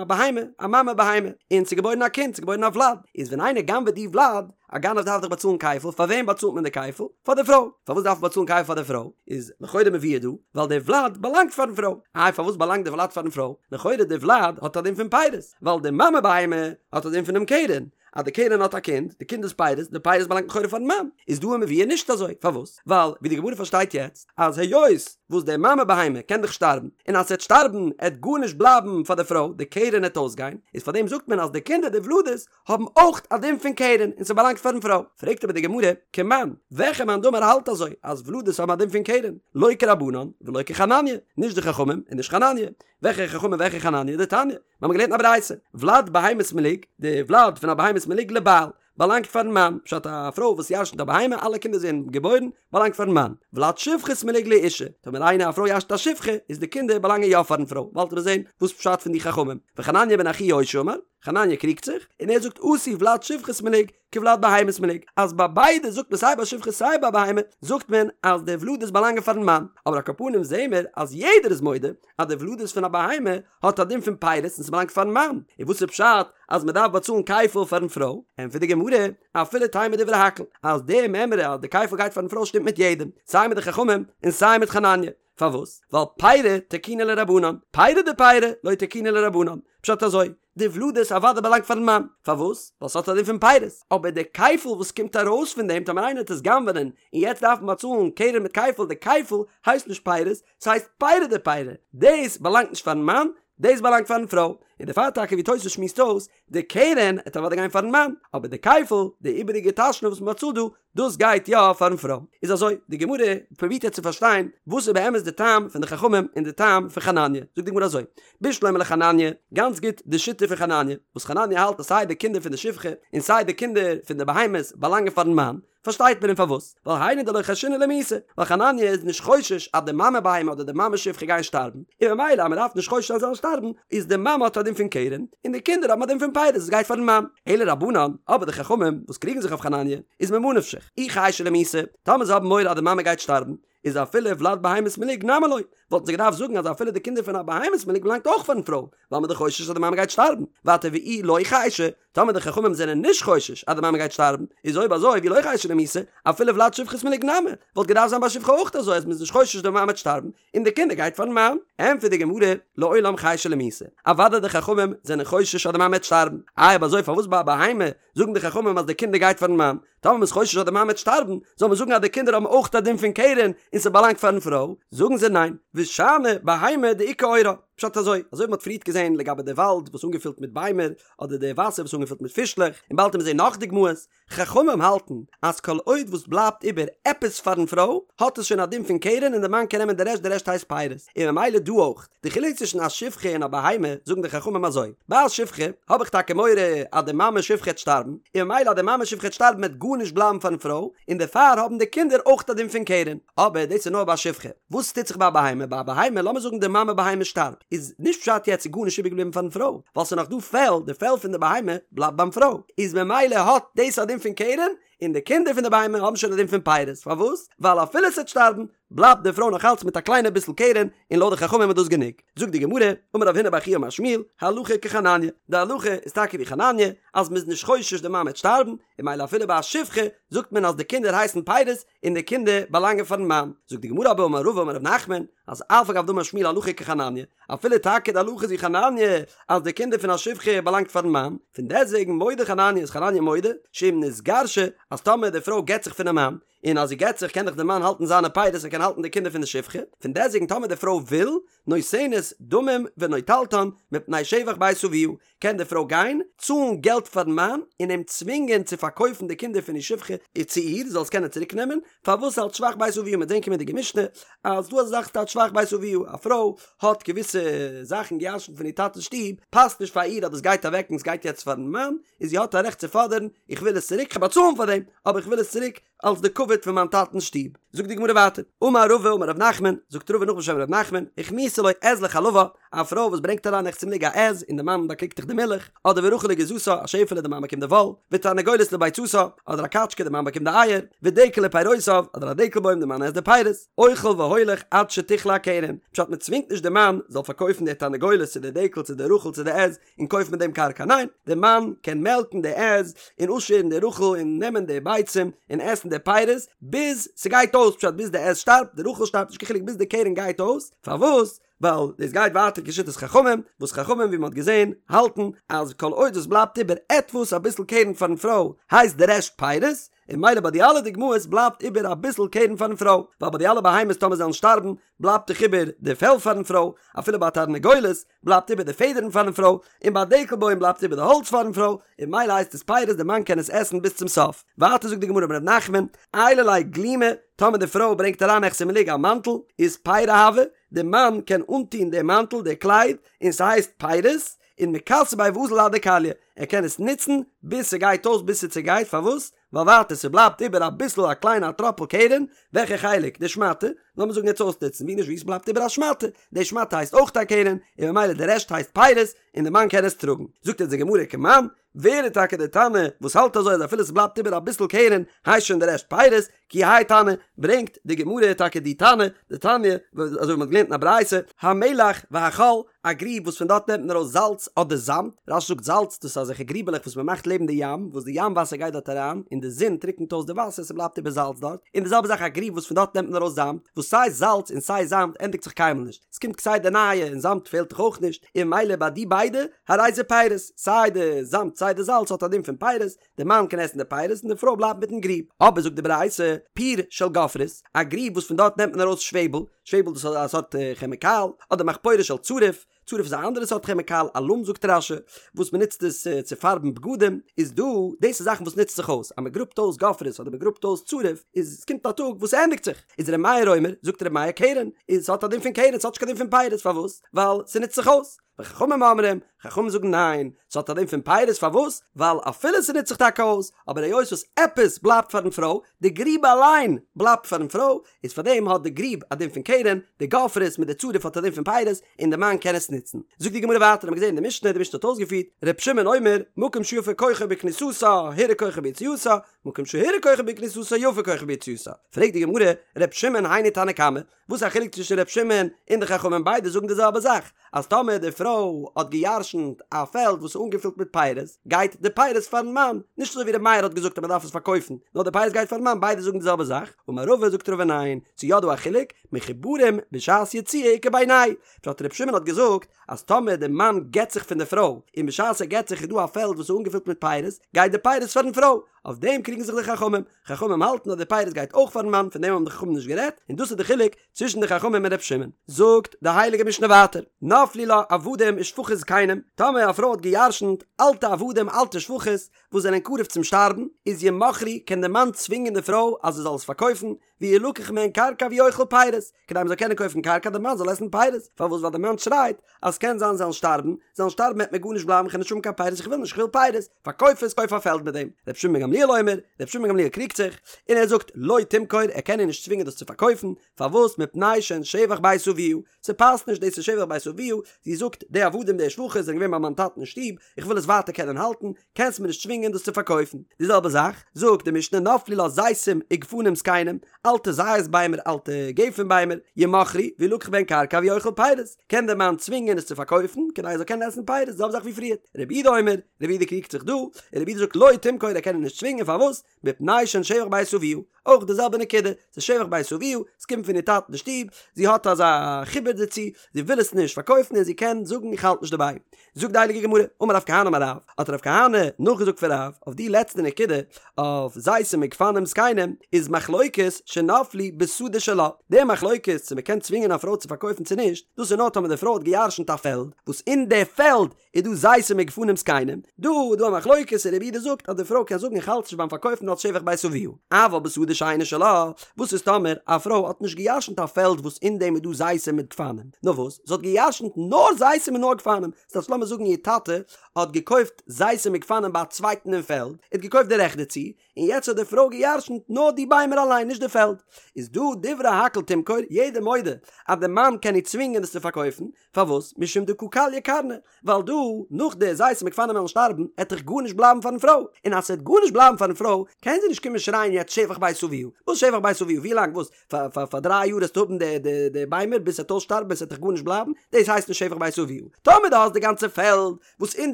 בהמה, א מאמע בהמה, און ס'איז געבוירן א קינד, ס'איז געבוירן א ולד, איז ווען איינער גנב'עט די ולד, א גנב דארף דאך באצאלן כפל, פאר וועם באצאלט מען די כפל? פאר די פרוי. פארוואס דארף מען באצאלן כפל פאר די פרוי? איז לכאורה מבואר דא, ווייל די ולד באלאנגט פארן פרוי. איי פארוואס באלאנגט די ולד פארן פרוי? לכאורה די ולד האט א דין פון פירות, ווייל די מאמע בהמה האט א דין פונעם קרן, אז די קרן האט א קינד, די קינד איז פירות, די פירות באלאנגט לכאורה פארן מאן, איז דא מבואר נישט אזוי, פארוואס? ווייל ווי די גמרא פארשטייט יעצט, אז היות וואס די מאמע בהמה קען דאך שטארבן, און אז ס'עט שטארבן עט גארנישט בלייבן פאר די פרוי, די קרן עט אויסגיין, איז פארדעם זאגט מען אז די קינדער די ולדות האבן אויך א דין פון קרן און ס'באלאנגט פארן פרוי. פרעגט אבער די גמרא, כמאן, וועלכע מאן דאמר האלט אזוי אז ולדות האבן א דין פון קרן? לא כרבנן ולא כחנניה, נישט די חכמים און נישט חנניה. וועלכע חכמים וועלכע חנניה? דתניא, מיר האבן געלערנט א ברייתא, ולד בהמת מלוג, די ולד פון א בהמת מלוג לבעל, באלאנגט פארן מאן, פשט א פרוי וואס ירשנט א בהמה, אלע קינדער זענען געבוירן, באלאנגט פארן מאן, ולד שפחת מלוג לאשה, טאמער איינער א פרוי ירשנט א שפחה, איז די קינדער באלאנגען יא פארן פרוי, באלד וועט מען זען וואס פשט פון די חכמים, וחנניה בן אחי יושע אמר, חנניה קריגט זיך, און ער זאגט עשו ולד שפחת מלוג, כולד בהמת מלוג, אז ביי ביידע זאגט מען סיי ביי שפחה סיי ביי בהמה זאגט מען אז די ולדות באלאנגען פארן מאן, אבער על כל פנים זעהן מיר אז יעדער איז מודה אז די ולדות פון א בהמה האט א דין פון פירות און ס'באלאנגט פארן מאן, און וואס איז פשט אז מ'דארף באצאלן כפל פארן פרוי? ענטפערט די גמרא, אפילו תימא דברי הכל, אז די מימרא אז די כפל גייט פארן פרוי שטימט מיט יעדעם, סיי מיט די חכמים און סיי מיט חנניה, פארוואס? ווייל פירי תקינו ליה רבנן, פירי דפירי לא תקינו ליה רבנן, פשט אזוי, די ולדות אוודאי באלאנגט פארן מאן, פארוואס? ווייל ס'האט א דין פון פירות, אבער די כפל וואס קומט ארויס פון דעם טאמער איינער וועט עס גנב'נען און יעצט דארף מען באצאלן קרן מיט כפל, די כפל הייסט נישט פירות, ס'הייסט פירי דפירי, דאס באלאנגט נישט פארן מאן, דאס באלאנגט פארן פרוי, און דערפאר טאקע ווי תוס' שמועסט אויס, די קרן עט אוודאי גיין פארן מאן, אבער די כפל, די איבעריגע תשלום וואס מ'באצאלט דא, דאס גייט יא פארן פרוי. איז אזוי, די גמרא פרובירט יעצט צו פארשטיין וואס איז באמת די טעם פון די חכמים און די טעם פון חנניה, זאגט די גמרא אזוי, בשלמא לחנניה, גאנץ גוט די שיטה פון חנניה, וואס חנניה האלט אז סיי די קינדער פון די שפחה און סיי די קינדער פון די בהמות באלאנגען פארן מאן, פארשטייט מען אים פארוואס, ווייל היינו דלא חיישינן למיתה, ווייל חנניה איז נישט חושש אז די מאמע בהמה אדער די מאמע שפחה גייען שטארבן, און ממילא אז מען דארף נישט חושש זיין זיי זאלן שטארבן, איז די מאמע האט א דין פון קרן, און די קינדער האבן א דין פון פירות עס גייט פארן מאן. אלא רבנן, אבער די חכמים וואס קריגן זיך אויף חנניה, איז ממה נפשך, אי חיישי למיתה, טאמער זיי האבן מורא אז די מאמע גייט שטארבן, איז אפילו ולד בהמת מלוג נמי לא, וואלטן זיי געדארפט זאגן אז אפילו די קינדער פון א בהמת מלוג באלאנגט אויך פארן פרוי, ווייל מ'איז דאך חושש אז די מאמע גייט שטארבן, ווייטער ואי לא חיישי, טאמער די חכמים זענען נישט חושש אז די מאמע גייט שטארבן, איז אויב אזוי ואי לא חיישי למיתה, אפילו ולד שפחת מלוג נמי, וואלט געדארפט זיין ביי שפחה אויך אזוי אז מ'איז נישט חושש די מאמע וועט שטארבן, און די קינדער גייט פארן מאן. ענטפערט די גמרא, לעולם חיישי למיתה, אוודאי די חכמים זענען חושש אז די מאמע וועט שטארבן, איי אויב אזוי פארוואס ביי א בהמה זאגן די חכמים אז די קינדער גייט פארן מאן, טאמער מ'איז חושש אז די מאמע וועט שטארבן, זאל מען זאגן אז די קינדער האבן אויך א דין פון קרן און ס'באלאנגט פארן פרוי, זאגן זיי ניין, ושאני בהמה דאיכא עורה, פשט אזוי, אזוי ווי מ'האט פריערט געזען לגבי די וואלד וואס אנגעפילט מיט ביימער, אדער די וואסער וואס אנגעפילט מיט פישלעך, און באלד וועט מען זען נאך דוגמאות, חכמים האלטן אז כל עוד וואס בלייבט איבער עפעס פארן פרוי, האט עס שוין א דין פון קרן און די מאן קען נעמען די רעשט, די רעשט הייסט פירות, און ממילא דא אויך. די חילוק צווישן א שפחה און א בהמה, זאגן די חכמים אזוי, ביי א שפחה האב איך טאקע מורא אז די מאמע שפחה העט שטארבן, און ממילא אז די מאמע שפחה העט שטארבן העט גארנישט בלייבן פארן פרוי, און דערפאר האבן די קינדער אויך א דין פון קרן. אבער דאס איז נאר ביי א שפחה. וואס טוט זיך ביי א בהמה? ביי א בהמה, לאמיר זאגן די מאמע בהמה שטארבט, איז נישט פשט יעצט איז גארנישט איבערגעבליבן פארן פרוי, ווייל ס'איז נאך דא פעל, די פעל פון די בהמה בלייבט ביים פרוי, איז ממילא האט דאס א דין פון קרן, און די קינדער פון די בהמה האבן שוין א דין פון פירות, פארוואס? ווייל אפילו ס'העט שטארבן, בלייבט די פרוי נאך אלץ מיט א קליינע ביסל קרן, און לויט די חכמים איז דאס גענוג. זאגט די גמרא, אמר רב הונא בר חייא אמר שמואל, הלכה כחנניה, די הלכה איז טאקע ווי חנניה, אז מ'איז נישט חושש די מאמע וועט שטארבן, און ממילא אפילו ביי א שפחה זאגט מען אז די קינדער הייסן פירות און די קינדער באלאנגען פארן מאן. זאגט די גמרא אבער אמר רבא אמר רב נחמן, אז אף על גב דאמר שמואל הלכה כחנניה, אפילו טאקע די הלכה איז ווי חנניה אז די קינדער פון א שפחה באלאנגט פארן מאן, פון דעסטוועגן מודה חנניה איז חנניה מודה שאם נתגרשה אז טאמער די פרוי גט זיך פונעם מאן, און אז זי גט זיך קען דאך די מאן האלטן זיינע פירות ער קען האלטן די קינדער פון די שפחה, פון דעסטוועגן טאמער די פרוי וויל, נותנת דמים ונוטלתן מפני שבח בית אביה, קען די פרוי גיין, צאלן געלט פארן מאן, און אים צווינגען צו פארקויפן די קינדער פון איר שפחה צו איר, זי זאל עס קענען צוריק נעמען, פארוואס אלץ שבח בית אביה, מ'וועט זען קומענדיגע משנה, אז דא אזא זאך ס'טייטש שבח בית אביה, א פרוי האט געוויסע זאכן געירשנט פון איר טאטע'ס שטוב, פאסט נישט פאר איר אז דאס גייט אוועק און עס גייט יעצט פארן מאן, און זי האט א רעכט צו פאדערן, איך וויל עס צוריק, כ'וועל באצאלן פאר דעם, אבער איך וויל עס צוריק, אלס די כבוד פון מיין טאטנ'ס שטוב. זאגט די גמרא ווייטער, אמר רבא אמר ר' נחמן, זאגט רבא נאך בשם ר' נחמן, הכניסה לו עז לחלבה, א פרוי וואס ברענגט אריין רחצה מלוג א עז און די מאן באקריגט דאך די מילך, אדער ורחל לגיזתה, א שעפעלע די מאן באקומט די וואל, ותרנגולת לביצתה, אדער א קאטשקע די מאן באקומט די אייער, ודקל לפירותיו, אדער א דקל בוים די מאן עסט די פירות, אוכל והולך עד שתכלה הקרן, פשט מען צווינגט נישט די מאן זאל פארקויפן די תרנגולת צו די דקל צו די רחל צו די עז, און קויפן מיט דעם קרקע, ניין, דער מאן קען מעלקן די עז און אפשערן די רחל און נעמען די ביצים און עסן די פירות ביז ס'גייט אויס, פשט ביז די עז שטארבט, די רחל שטארבט, נישט קיין חילוק ביז די קרן גייט אויס, פארוואס? ווייל דאס גייט ווייטער כשיטת חכמים, וואס חכמים ווי מ'האט געזען האלטן אז כל עוד עס בלייבט איבער עטוואס אביסל קרן פארן פרוי הייסט די רעשט פירות, און ממילא ביי די אלע דוגמאות בלייבט איבער אביסל קרן פארן פרוי, ווייל ביי די אלע בהמות טאמער זיי וועלן שטארבן בלייבט דאך איבער די פעל פארן פרוי, אפילו ביי תרנגולת בלייבט איבער די פעדערן פארן פרוי, און ביי דקל בוים בלייבט איבער די האלץ פארן פרוי, און ממילא הייסט עס פירות די מאן קען עס עסן ביז צום סוף. ווייטער זאגט די גמרא אמר ר' נחמן, עיילה ליה גלימא, טאמער די פרוי ברענגט אריין נכסי מלוג א מאנטל, איז פירי הוו, די מאן קען אנטון די מאנטל, די קלייד, און ס'הייסט פירות, און מכסי ביה ואזיל עד דכליא, ער קען עס נוצן ביז ס'גייט אויס ביז ס'צעגייט, פארוואס? ווייל ווייטער ס'בלייבט איבער אביסל א קליינע א טראפל קרן, וועלכע חלק? די שמאטע, לאמיר זאגן יעצט אויסנוצן, ווי נישט ווי ס'בלייבט איבער א שמאטע, די שמאטע הייסט אויך א קרן, און ממילא די רעשט הייסט פירות, און די מאן קען עס טראגן. זאגט אונז די גמרא כמאן, ווער איז טאקע די תנא וואס האלט אזוי אז אפילו ס'בלייבט איבער אביסל קרן הייסט שוין די רעשט פירות, כי האי תנא, ברענגט די גמרא טאקע די תנא, דתניא, אזוי ווי מ'האט געלערנט אין א ברייתא, המלח והחול, א גריב וואס פון דארט נעמט מען ארויס זאלץ אדער זאמד, רש"י זאגט זאלץ, דאס איז אזעלכע גריבעלעך וואס מען מאכט לעבן די ים, וואס די ים וואסער גייט דארט אריין, און די זון טריקנט אויס די וואסער, ס'בלייבט איבער זאלץ דארט, און די זעלבע זאך א גריב וואס פון דארט נעמט מען ארויס זאמד, וואס סיי זאלץ און סיי זאמד ענדיגט זיך קיינמאל נישט, ס'קומט כסדר נייע און זאמד פעלט דאך אויך נישט, און ממילא ביי די ביידע, הרי זה פירות, סיי די זאמד סיי די זאלץ האט א דין פון פירות, די מאן קען עסן די פירות און די פרוי בלייבט מיטן גריב. אבער זאגט די ברייתא, פיר של גופרית, א גריב וואס פון דארט נעמט מען ארויס שוועבל, שוועבל דאס איז א סארט כעמיקאל, אדער מחפורת של צריף, צריף איז א אנדערע סארט כעמיקאל, אלום זאגט רש"י, וואס מען נוצט עס צו פארבן בגדים, איז דא, דאס איז זאכן וואס נוצט זיך אויס, אז מען גראבט אויס גופרית אדער מען גראבט אויס צריף, איז עס קומט א טאג וואס ס'ענדיגט זיך, איז ר' מאיר אומר, זאגט ר' מאיר קרן, איז ס'האט א דין פון קרן, ס'האט נישט קיין דין פון פירות, פארוואס? ווייל ס'נוצט זיך אויס. וחכמים אומרים, חכמים זאגן ניין, ס'האט א דין פון פירות, פארוואס? ווייל אפילו ס'נוצט זיך טאקע אויס, אבער היות וואס עפעס בלייבט פארן פרוי, די גריב אליין בלייבט פארן פרוי, איז פארדעם האט די גריב א דין פון קרן, די גופרית מיט די צריף האט א דין פון פירות, און די מאן קען עס נוצן. זאגט די גמרא ווייטער, האמיר געזען אין די משנה, די משנה האט אויסגעפירט, ר' שמעון אומר, מקום שיפה כוחו בכניסתה, הורע כוחו ביציאתה, מקום שהורע כוחו בכניסתה, יפה כוחו ביציאתה. פרעגט די גמרא, ר' שמעון היינו תנא קמא, וואס איז א חילוק צווישן ר' שמעון און די חכמים ביידע זאגן די זעלבע זאך אז טאמער די פרוי האט גע'ירש'נט א פעלד וואס איז אנגעפילט מיט פירות גייט די פירות פארן מאן נישט אזוי ווי ר' מאיר האט געזאגט אז מען דארף עס פארקויפן נאר די פירות גייט פארן מאן ביידע זאגן די זעלבע זאך אמר רבא זאגט רבא ניין ס'איז יא דא א חילוק מחוברים בשעת יציאה איכא בינייהו פשט ר' שמעון האט געזאגט אז טאמער די מאן גט זיך פון די פרוי און בשעת ער גט זיך איז דא א פעלד וואס איז אנגעפילט מיט פירות גייט די פירות פארן פרוי אויף דעם קריגן זיך די חכמים חכמים האלטן אז די פירות גייט אויך פארן מאן, פון דעם האבן די חכמים נישט גערעדט, און דאס איז די חילוק צווישן די חכמים און ר' שמעון. זאגט די הייליגע משנה ווייטער, נפלו לה עבדים ושפחות זקנים, טאמער א פרוי האט גע'ירש'נט אלטע עבדים אלטע שפחות וואס זענען קרוב צום שטארבן, איז ימכרו, קען די מאן צווינגען די פרוי אז זי זאל עס פארקויפן, וילקח מהן קרקע והוא אוכל פירות, כדי מ'זאל קענען קויפן קרקע די מאן זאל עסן פירות, פארוואס ווייל די מאן שרייט אז ס'קען זיין זיי וועלן שטארבן, זיי וועלן שטארבן וועט מיר גארנישט בלייבן כ'וועל נישט האבן קיין פירות איך וויל נישט כ'וויל פירות, פארקויף עס קויף א פעלד מיט דעם, ר' שמעון בן גמליאל אומר, ר' שמעון בן גמליאל קריגט זיך, און ער זאגט לא תמכור ער קען איר נישט צווינגען דאס צו פארקויפן, פארוואס מפני שהן שבח בית אביה, ס'פאסט נישט דאס איז שבח בית אביה, זי זאגט די עבדים די שפחות זענען געווען ביי מיין טאטן אין שטוב, איך וויל עס ווייטער קענען האלטן, קענסט מיר נישט צווינגען דאס צו פארקויפן. די זעלבע זאך זאגט די משנה נפלו לה זיתים וגפנים זקנים, אלטע זית ביימער, אלטע גפן ביימער, ימכרו, וילקח בהן קרקע והוא אוכל פירות, קען דער מאן צווינגען עס צו פארקויפן, כדי ער זאל קענען עסן פירות, די זעלבע זאך ווי פריערט. רבי יהודה אומר, רבי יהודה קריגט זיך דא, און רבי יהודה זאגט לא תמכור ער קען איר נישט צווינגען, פארוואס? מפני שהן שבח בית אביה, אויך די זעלבע נקודה, ס'איז שבח בית אביה, ס'קומט פון איר טאטן די שטוב, זי האט אזא חיבור דערצו, זי וויל עס נישט פארקויפן און זי קען זאגן איך האלט נישט דערביי. זאגט די הייליגע גמרא, אמר רב כהנא אמר רב, האט רב כהנא נאכגעזאגט פון רב, אויף די לעצטע נקודה, אויף זיתים וגפנים זקנים, איז מחלוקת שנפלו בשדה שלה, די מחלוקת צו מ'קען צווינגען א פרוי צו פארקויפן צו נישט, דאס איז נאר טאמער די פרוי האט גע'ירש'נט א פעלד, וואס אין די פעלד איז דא זיתים וגפנים זקנים, דא איז דא א מחלוקת און רבי יהודה זאגט אז די פרוי קען זאגן איך האלט נישט ביים פארקויפן אלס שבח בית אביה, אבל בשדה שאינה שלה, וואס איז טאמער א פרוי האט נישט גע'ירש'נט א פעלד וואס אין דעם איז דא זיתים מיט גפנים, נאר וואס זי האט גע'ירש'נט נאר זיתים און נאר גפנים, ס'טייטש לאמיר זאגן איר טאטע האט געקויפט זיתים מיט גפנים ביי א צווייטן אין פעלד, ער האט געקויפט די רעכט דערצו, און יעצט האט די פרוי גע'ירש'נט נאר די ביימער אליין נישט די פעלד, איז דא דברי הכל תמכור, יעדער מודה אז די מאן קען איר צווינגען עס צו פארקויפן, פארוואס? משום דקא כליא קרנא, ווייל דא, נאך די זיתים וגפנים וועלן שטארבן, עט דאך גארנישט בלייבן פארן פרוי, און אז ס'עט גארנישט בלייבן פארן פרוי, קען זי נישט קומען שרייען יעצט שבח בית אביה, וואס שבח בית אביה, ווי לאנג וואס, פאר פאר פאר דריי יאר עסטו האבן די די די ביימער ביז ס'עט אויסשטארבן און ס'עט דאך גארנישט בלייבן, דאס הייסט נישט שבח בית אביה. טאמער דו האסט די גאנצע פעלד, וואס אין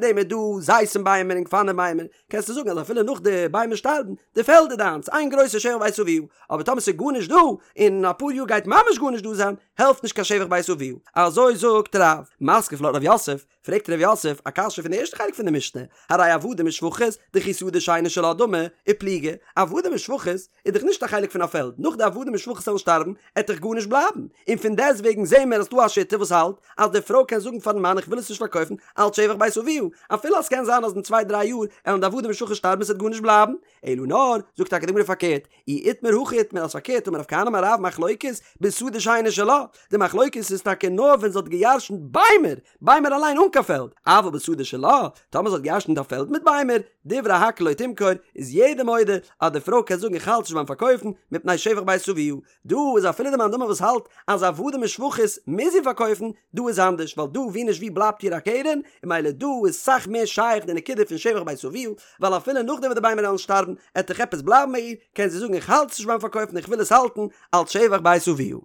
דעם איז דא זיתים ביימער און גפנים ביימער, קענסטו זאגן אז אפילו נאך די ביימער שטארבן, די פעלד איז דיינס, איין גרויסע שבח בית אביה, אבער טאמער ס'איז גארנישט דא, און אין אפאר יאר גייט ממש גארנישט דא זיין, העלפט נישט קיין שבח בית אביה. אזוי זאגט רב. מתקיף לה רב יוסף, פרעגט רב יוסף א קשיא פון די ערשטע חלק פון די משנה, הרי עבדים ושפחות, דכי שדה שאינה שלה דמי, ופליגי, עבדים ושפחות איז דאך נישט א חלק פון א פעלד, נאך די עבדים ושפחות וועלן שטארבן, עט דאך גארנישט בלייבן, און פון דעסט וועגן זעהן מיר אז ס'דא א שיטה וואס האלט אז די פרוי קען זאגן פארן מאן איך וויל עס נישט פארקויפן אלץ שבח בית אביה, אפילו אז ס'קען זיין אז אין צוויי דריי יאר עלן די עבדים ושפחות שטארבן און ס'עט גארנישט בלייבן, אלא נאר, זאגט טאקע די גמרא פארקערט, אי איתמר הכי איתמר אז פארקערט אמר רב כהנא אמר רב מחלוקת בשדה שאינה שלה, די מחלוקת איז טאקע נאר ווען זי האט געירשנט ביימער, ביימער אליין אן קיין פעלד, אבל בשדה שלה, טאמער זי האט געירשנט א פעלד מיט ביימער, דברי הכל לא תמכור, איז יעדער מודה אז די פרוי קען זאגן איך האלט נישט ביים פארקויפן, מפני שבח בית אביה, דא איז אפילו די מאן דאמר וואס האלט אז עבדים ושפחות מוז זי פארקויפן, דא איז אנדערש ווייל דא ווי נישט ווי בלייבט איר א קרן, און ממילא דא איז סאך מער שייך די נקודה פון שבח בית אביה, ווייל אפילו נאכדעם וואס די ביימער וועלן שטארבן עט דאך עפעס בלייבן ביי איר, קען זי זאגן איך האלט עס נישט ביים פארקויפן איך וויל עס האלטן אלץ שבח בית אביה.